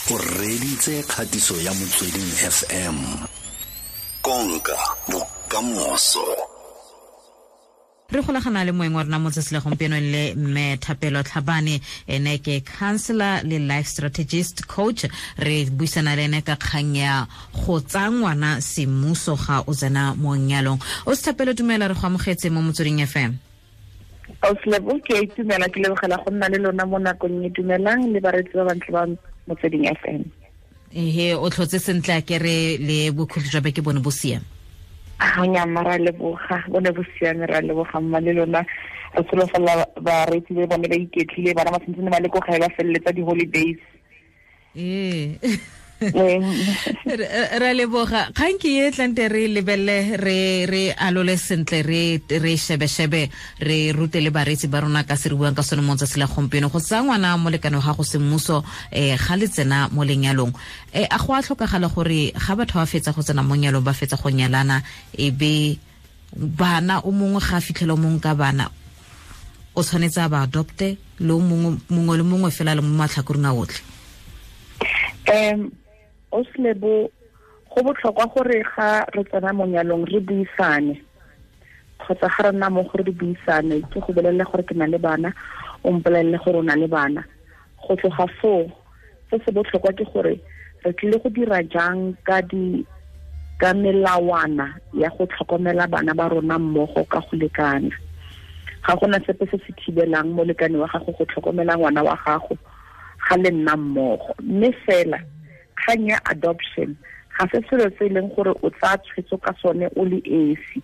O reditse kgatiso ya Motsweding FM. Konka bokamoso. Re golagana le moeng wa rona mo tsatsi la gompieno le mme Thapelo Tlhabane, ene ke counselor le life strategist coach. Re buisana le ene ka kgang ya go tsaya ngwana semmuso ga o tsena mo nyalong. O se Thapelo, dumela, re go amogetse mo Motsweding FM. Auslebo, ke a itumela, ke lebogela go nna le lona mo nakong e. Dumelang le bareetsi ba bantle ba Motsweding FM. Ehe, o tlhotse sentle a kere le bokhutlo jwa beke bone bo siame? Ga ra leboga, bone bo siame, ra leboga mma le lona. Re solofela bareetsi le bone ba iketlile, bana ba santse ba le ko gae ba feleletsa di-holidays. Ee, ra leboga. Kgang ke e tlante re lebelele, re alole sentle, re shebe-shebe, re rute le bareetsi ba rona ka se re buang ka sone mo tsatsi la gompieno, go tsaya ngwana molekane wa gago semmuso ga le tsena mo lenyalong. A go a tlhokagala gore ga batho ba fetsa go tsena mo nyalong, ba fetsa go nyalana, e be bana o mongwe ga a fitlhela o mongwe ka bana, o tshwanetse a ba adopte le o mongwe le mongwe fela le mo matlhakoreng a otlhe? Oslebo, go botlhokwa gore ga re tsena mo nyalong re buisane, kgotsa ga re nna mo gore re buisane, ke go bolelele gore ke na le bana, o mpolelele gore o na le bana. Go tloga foo, se se botlhokwa ke gore re tlile go dira jang ka melawana ya go tlhokomela bana ba rona mmogo ka go lekana. Ga gona sepe se se thibelang molekane wa gago go tlhokomela ngwana wa gago ga le nna mmogo, mme fela kgang ya adoption ga se selo se e leng gore o tsaya tshwetso ka sone o le esi,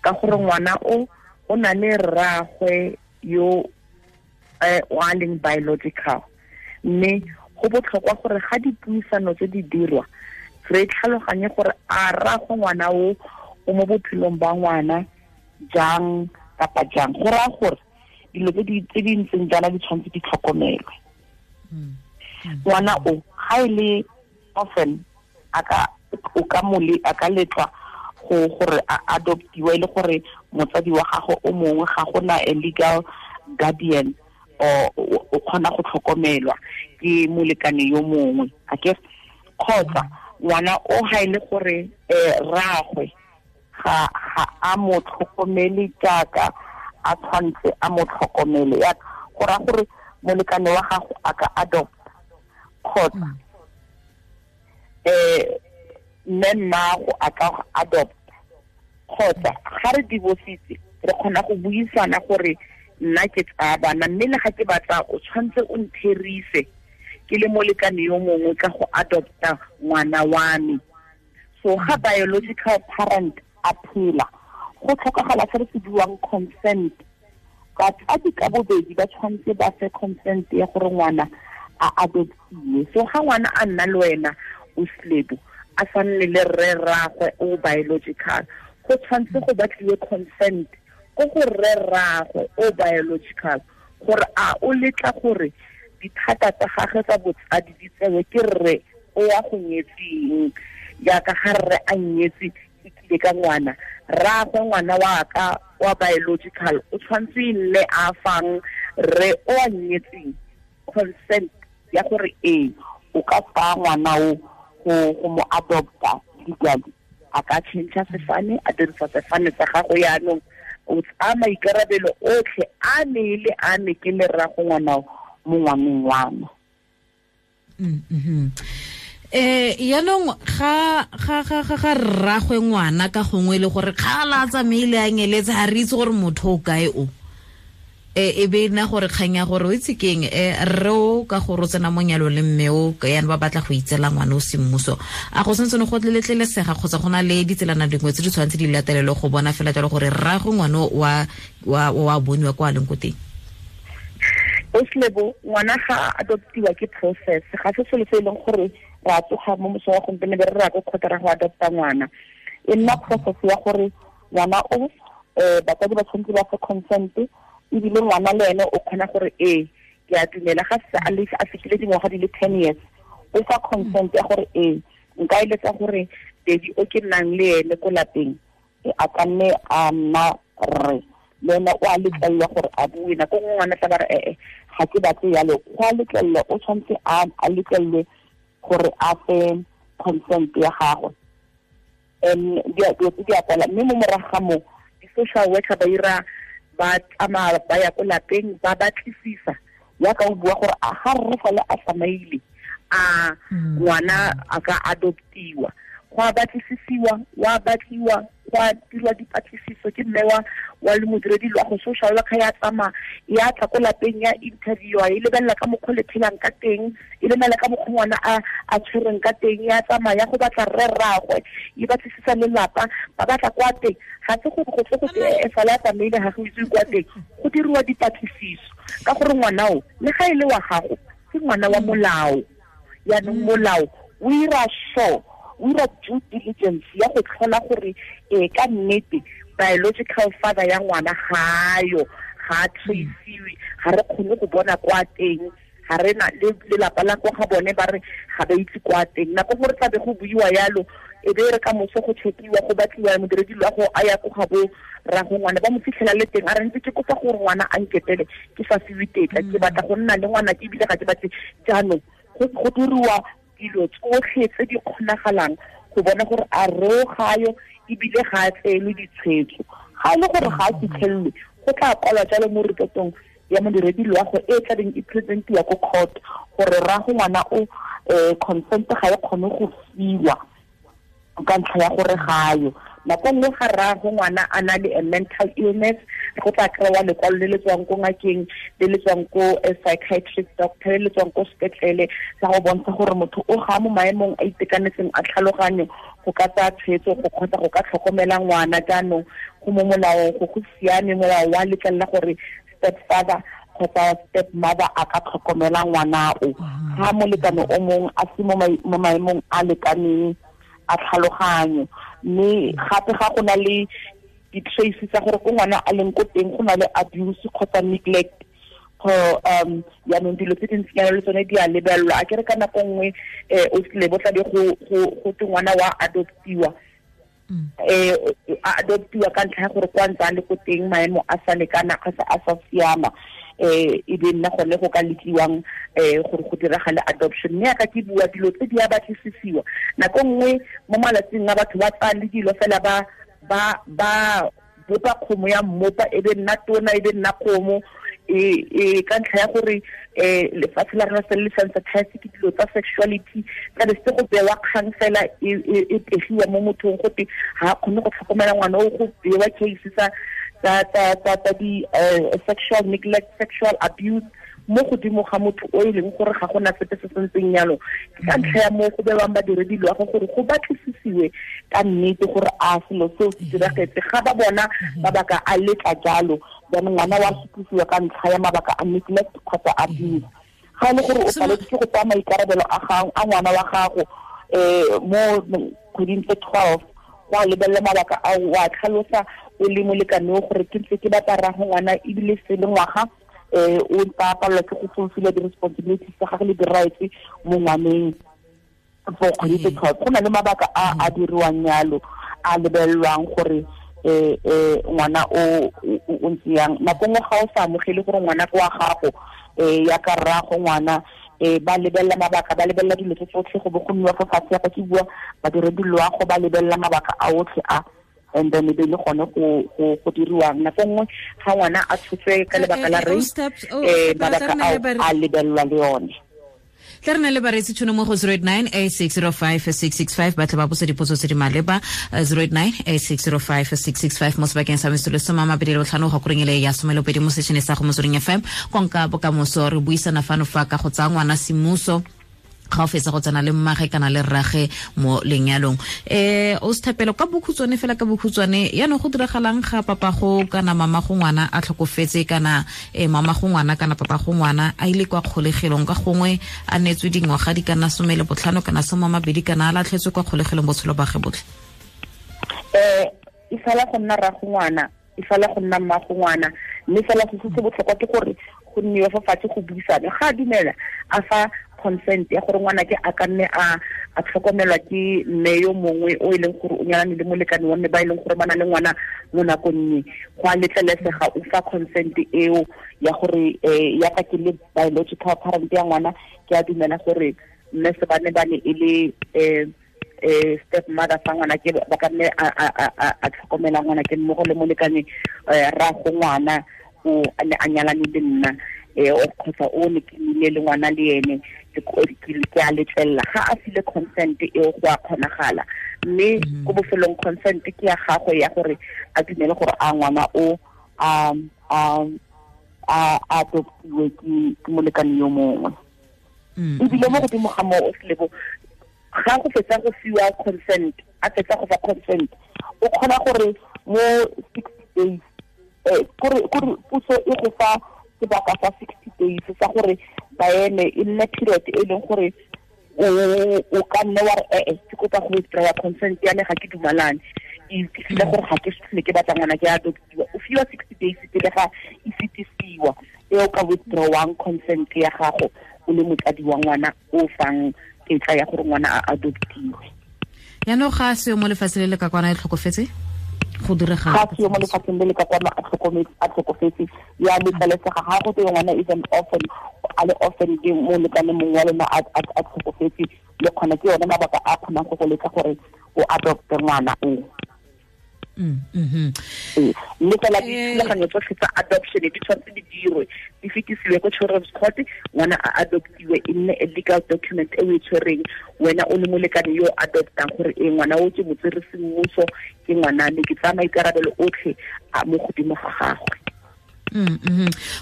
ka gore ngwana o na le rraagwe yo o a leng biological. Mme go botlhokwa gore ga dipuisano tse di dirwa re tlhaloganye gore a rraagwe ngwana o mo bophelong ba ngwana jang kapa jang. Go raya gore dilo tse di ntseng jaana di tshwanetse di tlhokomelwe. Ngwana o ga e le orphan, a ka o ka mole a ka letlwa go gore a adoptiwa, e le gore motsadi wa gago o mongwe ga gona a legal guardian, o kgona go tlhokomelwa ke molekane yo mongwe a ke, kgotsa ngwana o ga e le gore rraagwe ga a mo tlhokomele jaaka a tshwanetse a mo tlhokomele, ya go raya gore molekane wa gago a ka adopt, kgotsa mme mmago a ka adopt, kgotsa ga re divorcitse re kgona go buisana gore nna ke tsaya bana, mme le ga ke batla o tshwanetse o ntherise ke le molekane yo mongwe ka go adopta ngwana wa me. So ga biological parent a phela, go tlhokagala se re se buang consent. Batsadi ka bobedi ba tshwanetse ba fe consent ya gore ngwana a adoptiwe. So ga ngwana a nna le wena o slebo, a sa nne le rre rraagwe o biological, go tshwanetse go batliwe consent ko go rre rraagwe o biological gore a o letla gore dithata tsa gagwe tsa botsadi di tsewe ke rre o ya go nyetseng. Jaaka ga rre a nyetse e tlile ka ngwana, rraagwe ngwana wa ka wa biological o tshwanetse e nne a fang rre o a nyetseng consent ya gore ee, o ka tsaya ngwana o go mo adopta legally. A ka change sefane, a dirisa sefane sa gago, yaanong o tsaya maikarabelo otlhe a ne le a ne ke le rrago ngwana mo ngwaneng wa me. Yaanong ga rraagwe ngwana ka gongwe le gore kgala a tsamaile a nyeletse, ga re itse gore motho o kae o, e be nna gore kgang ya gore o itse keng, rre o ka gore o tsena mo nyalong le mme o yana ba batla go itsela ngwana o semmuso, a go santse go letlelesega kgotsa go na le ditselana dingwe tse di tshwanetse di latelelwe go bona fela jalo gore rraagwe ngwana wa boniwa kwa a leng ko teng? Oslebo, ngwana ga adoptiwa ke process, ga se selo se e leng gore ra tsoga mo mosong wa gompieno be re ra ko kgotsa ra go adopta ngwana. E nna process ya gore ngwana o batsadi ba tshwanetse ba fe consent, ebile ngwana le ene o kgona gore ee, ke a dumela ga se a fetile dingwaga di le 10 years, o fa consent ya gore ee, nka eletsa gore daddy o ke nnang le ene ko lapeng a ka nne a nna rre, le ene o a letlelelwa gore a bue. Nako nngwe ngwana tla ba re ee, ga ke batle yalo, go a letlelelwa, o tshwanetse a letlelelwe gore Gore a fe consent ya gagwe. Dilo tse di a kwala, mme mo morago ga moo di-social worker ba ira ba tsamaya ba ya ko lapeng ba batlisisa ya ka o bua gore a ga rre fale a tsamaile a ngwana a ka adoptiwa. Go a batlisisiwa, wa batliwa, go a dirwa dipatlisiso ke mme wa le modiredi loago. Social worker ya tsamaya ya tla ko lapeng, ya interviewa, e lebelela ka mokgwa le phelang ka teng, e lebelela ka mokgwa ngwana a tshwereng ka teng. Ya tsamaya ya go batla rre rraagwe, e batlisisa lelapa, ba batla kwa teng. Ga se gore go tle go e fale a tsamaile ga go itse kwa teng. Go diriwa dipatlisiso ka gore ngwana o, le ga e le wa gago, ke ngwana wa molao. Yaanong molao o ira sure, o ira due diligence ya go tlhola gore ka nnete biological father ya ngwana gayo, ga a traciwe, ga re kgone go bona kwa teng, ga re na le lelapa la kwa ga bone ba re ga ba itse kwa teng. Nako gore tlabe go buiwa yalo, e be re ka moso go chekiwa, go batliwa modiredi loago a ya ko ga bo rrago ngwana, ba mo fitlhela le teng, a re ntse ke kopa gore ngwana a nketele, ke sa fiwe tetla, ke batla go nna le ngwana ke ebile ga ke batle. Jaanong go diriwa dilo tsotlhe tse di kgonagalang go bona gore a reo gayo ebile ga a tseelwe ditshwetso. Ga e le gore ga a fitlhelelwe, go tla kwalwa jalo mo repotong ya modiredi loago e tlabeng e presentiwa ko court gore rrago ngwana o consent ga e kgone go fiwa ka ntlha ya gore gayo. Nako nngwe ga rrago ngwana a na le a mental illness, go tla kry-wa lekwalo le le tswang ko ngakeng, le le tswang ko psychiatric doctor, le le tswang ko sepetlele, sa go bontsha gore motho o ga mo maemong a itekanetseng a tlhaloganyo go ka tsaya tshwetso go kgotsa go ka tlhokomela ngwana. Jaanong go mo molaong, go siame, molao wa letlelela gore step father kgotsa step mother a ka tlhokomela ngwana o ga molekane o mongwe a se mo maemong a lekaneng a tlhaloganyo. Mme gape ga go na le di-trace tsa gore ko ngwana a leng ko teng go na le abuse kgotsa neglect go yaanong dilo tse dintsinyana le tsone di a lebelelwa. A kere ka nako nngwe o tlile bo tlabe go te ngwana wa adoptiwa, a adoptiwa ka ntlha ya gore kwa ntse a le ko teng maemo a sa lekana kgotsa a sa siama, e be nna gone go ka letliwang gore go diragale adoption. Mme yaka ke bua, dilo tse di a batlisisiwa. Nako nngwe mo malatsing a batho ba tsaya le dilo fela ba bopa kgomo ya mmopa, e be nna tona, e be nna kgomo e ka ntlha ya gore lefatshe la rona se le sensitize ke dilo tsa sexuality, tla be se go bewa kgang fela e pegiwa mo mothong gote ga a kgone go tlhokomela ngwana o, go bewa case tsa di sexual neglect, sexual abuse mo godimo ga motho o e leng gore ga gona sepe se sentseng yalo. Ke ka ntlha ya moo go bewang badiredi loago gore go batlisisiwe ka nnete gore a selo seo se diragetse. Ga ba bona mabaka a letla jalo, jaanong ngwana wa sutlisiwa ka ntlha ya mabaka a neglect kgotsa abuse. Ga e le gore o paletse ke go tsaya maikarabelo a ngwana wa gago mo kgweding tse 12, go a lebelela mabaka ao, wa tlhalosa o le molekane o gore ke ntse ke batla rrago ngwana ebile se le ngwaga o ntse a palelwa ke go fulfilla di-responsibilities tsa gagwe le di-rights mo ngwaneng for kgwedi tse 12. Go na le mabaka a diriwang yalo, a lebelelwang gore ngwana o ntse yang. Nako nngwe ga o sa amogele gore ngwana ke wa gago ya ka rrago ngwana, ba lebelela mabaka, ba lebelela dilo tse tsotlhe, go bo go nniwa fo fatshe ya ka ke bua badiredi loago ba lebelela mabaka a otlhe a, and then e be le gone go diriwang. Nako nngwe ga ngwana a tshotswe ka lebaka la rape, mabaka ao a lebelelwa le yone. Tla re na le bareetsi tšhono mo go 089 8605 665, ba tle ba botsa dipotso tse di maleba. 089 8605 665 mo sebakeng sa metsotso 25 go koreng ele ya 12 mo sešene sa go Motsweding FM, konka bokamoso. Re buisana fano fa ka go tsaya ngwana semmuso ga o fetsa go tsena le mmage kana le rrage mo lenyalong. O sethapelo, ka bokhutshwane fela, ka bokhutshwane, yaanong go diragalang ga papa go kana mama go ngwana a tlhokofetse, kana mama go ngwana kana papa go ngwana a ile kwa kgolegelong, ka gongwe a neetswe dingwaga di kana 15 kana 20, kana a latlhetswe kwa kgolegelong botshelo ba ge botlhe? E fela go nna rrago ngwana, e fela go nna mmago ngwana, mme fela se se botlhokwa ke gore go nniwe fa fatshe go buisane. Ga a dumela, a fa consent ya gore ngwana ke a ka nne a tlhokomelwa ke mme yo mongwe o e leng gore o nyalane le molekane wa mme ba e leng gore ba na le ngwana mo nakong e, go a letlelesega, o fa consent eo ya gore ya ka ke le biological parent ya ngwana, ke a dumela gore Mme se ba ne ba ne e le step mother sa ngwana ke ba ka nne a tlhokomela ngwana ke mmogo le molekane ra go ngwana o ne a nyalane le nna o kgotsa o ne ke nile le ngwana le ene ke a letlelela ga a file consent eo go a kgonagala mme ko bofelong consent ke ya gagwe ya gore a dumele gore a ngwana o a adoptiwe ke molekane yo mongwe. Ebile mo godimo ga moo o selebo ga go fetsa go fiwa consent a fetsa go fa consent o kgona gore mo 60 days kore puso e go fa sebaka sa 60 days sa gore ba eme e nne period e leng gore o ka nne wa re ke kopa go withdraw consent ya me ga ke dumalane ke file gore ga ke se ke batla ngwana ke adoptiwa. O fiwa 60 days pele ga e fetisiwa e o ka withdrawang consent ya gago o le motsadi wa ngwana o fang tetla ya gore ngwana a adoptiwe. Yaanong ga se mo lefatsheng le le ka kwana e tlhokofetse go direga ga se mo lefatsheng le le ka kwana a tlhokofetse ya letlelesega ga go twe ngwana is an orphan a le orphan ke molekane mongwe wa lona a tlhokofetse le kgona ke yone mabaka a kgonang go go letla gore o adopte ngwana o. Mme fela dithulaganyo tsotlhe tsa adoption di tshwanetse di dirwe di fetisiwe ko children's court, ngwana a adoptiwe e nne a legal document e o e tshwereng wena o le molekane yo adoptang gore e ngwana o ke motsere semmuso ke ngwana me ke tsaya maikarabelo otlhe a mo godimo ga gagwe.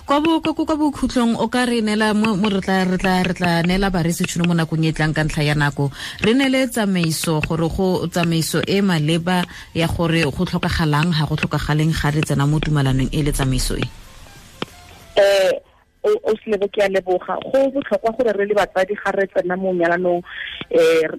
Kwa bokhutlong o ka re neela mo re tla neela baresi tšhono mo nakong e tlang ka ntlha ya nako re neele tsamaiso gore go tsamaiso e maleba ya gore go tlhokagalang ga go tlhokagaleng ga re tsena mo tumalanong e le tsamaiso e. O selebo ke a leboga. Go botlhokwa gore re le batsadi ga re tsena mo nyalanong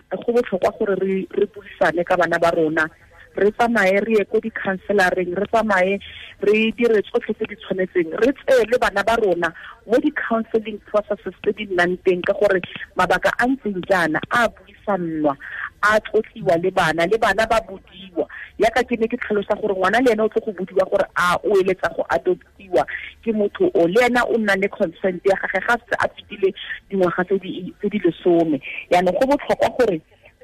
go botlhokwa gore re buisane ka bana ba rona, re tsamaye re ye ko di-counselareng, re tsamaye re dire tsotlhe tse di tshwanetseng, re tseye le bana ba rona mo di-counseling processes tse di nnang teng ka gore mabaka a ntseng jaana a buisannwa a tlotliwa le bana ba bodiwa. Yaka ke ne ke tlhalosa gore ngwana le ene o tlo go bodiwa gore a o eletsa go adoptiwa ke motho o le ena o nna le consent ya gagwe ga se a fetile dingwaga tse di 10. Yaanong go botlhokwa gore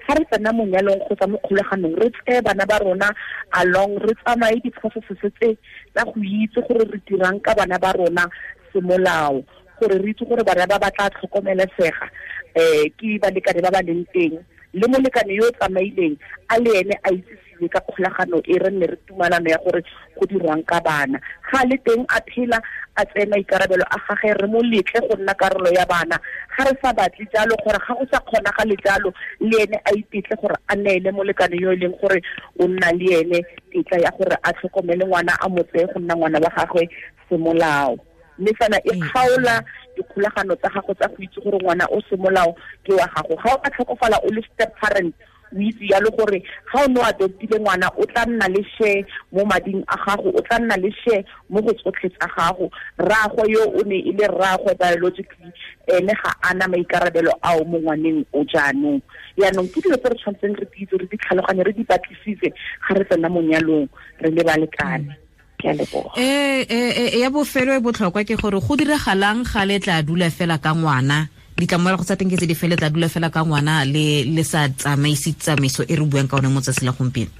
ga re tsena mo nyalong kgotsa mo kgolaganong re tseye bana ba rona along, re tsamaye di-processes tse tsa go itse gore re dirang ka bana ba rona semolao, gore re itse gore bana ba ba tla tlhokomelesega ke balekane ba ba leng teng le molekane yo o tsamaileng a le ene a itsisiwe ka kgolagano e re nne re tumalano ya gore go dirwang ka bana. Ga le teng a phela a tseye maikarabelo a gagwe re mo letle go nna karolo ya bana, ga re sa batle jalo gore ga go sa kgonagale jalo le ene a itetle gore a neele molekane yo e leng gore o nna le ene tetla ya gore a tlhokomele ngwana a mo tseye go nna ngwana wa gagwe semolao. Mme fela e kgaola dikgolagano tsa gago tsa go itse gore ngwana o semolao ke wa gago. Ga o ka tlhokofala o le step parent o itse yalo gore ga o ne o adoptile ngwana o tla nna le share mo mading a gago, o tla nna le share mo go tsotlhe tsa gago. Rraagwe yo o ne e le rraagwe biologically ene ga ana maikarabelo ao mo ngwaneng o jaanong. Yaanong ke dilo tse re tshwanetseng re di itse, re di tlhaloganye, re di batlisise ga re tsena mo nyalong re le balekane. Ya bofelo e botlhokwa ke gore go diragalang ga le tla dula fela ka ngwana, ditlamorago tsa teng ke tse di fele tla dula fela ka ngwana le sa tsamaise tsamaiso e re buang ka one mo tsatsi la gompieno.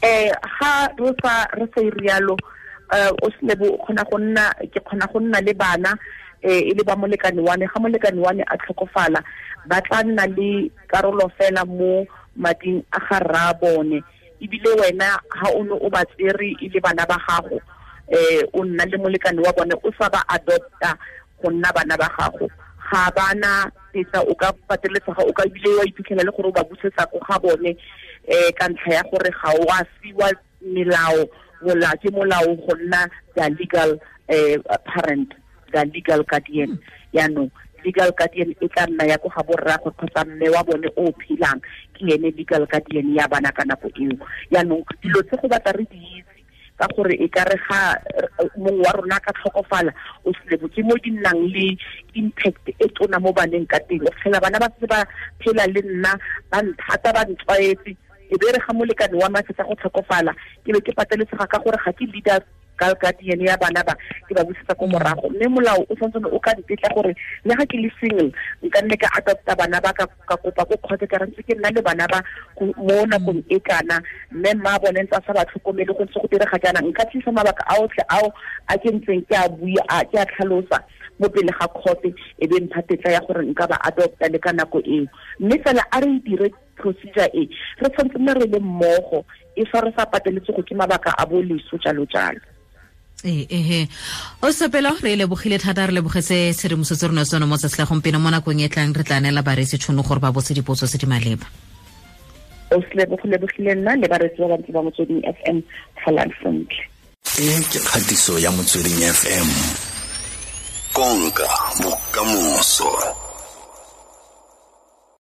Ga re sa rialo o selebo o kgona go nna ke kgona go nna le bana e le ba molekane wa me, ga molekane wa me a tlhokofala ba tla nna le karolo fela mo mading a ga rra bone. Ebile wena ha o ne o ba tsere e le bana ba gago o nna le molekane wa bone o sa ba adopta go nna bana ba gago, ga bana tetla o ka pateletsega o ka ebile wa iphitlhela le gore o ba busetsa ko ga bone ka ntlha ya gore ga o a fiwa melao ke molao go nna the legal parent, the legal guardian. Yaanong legal guardian e tla nna ya ko ga borraagwe kgotsa mme wa bone o phelang ke ene legal guardian ya bana ka nako eo. Yaanong dilo tse go batla re di itse ka gore e ka re ga mongwe wa rona ka tlhokofala o selebo ke mo di nnang le impact e tona mo baneng ka teng. O fitlhela bana ba se ba phela le nna ba nthata ba ntlwaetse, e be re ga molekane wa me a fetsa go tlhokofala ke be ke pateletsega ka gore ga ke leader guardian ya bana ba ke ba busetsa ko morago. Mme molao o santse o ka ntetla gore le ga ke le single nka nne ka adopta bana ba, ka kopa ko kgotsa ka re ntse ke nna le bana ba mo nakong e kana, mme mma bone ntse a sa ba tlhokomele, go ntse go direga jaana. Nka tlisa mabaka a otlhe ao a ke ntseng ke a bua, ke a tlhalosa mo pele ga court, e be mpha tetla ya gore nka ba adopta le ka nako eo. Mme fela a re dire procedure e re tshwanetse nne re le mmogo, e fa re sa pateletse go ke mabaka a bo leso jalo jalo. Ee, o sepelo re lebogile thata, re lebogetse tshedimosetso rona tsone mo tsatsi la gompieno. Mo nakong e tlang re tla neela bareetsi tšhono gore ba botse dipotso tse di maleba. O se lebogile nna le bareetsi ba bantsi ba Motsweding FM. Tlholang sentle. E ke kgatiso ya Motsweding FM, konka bokamoso.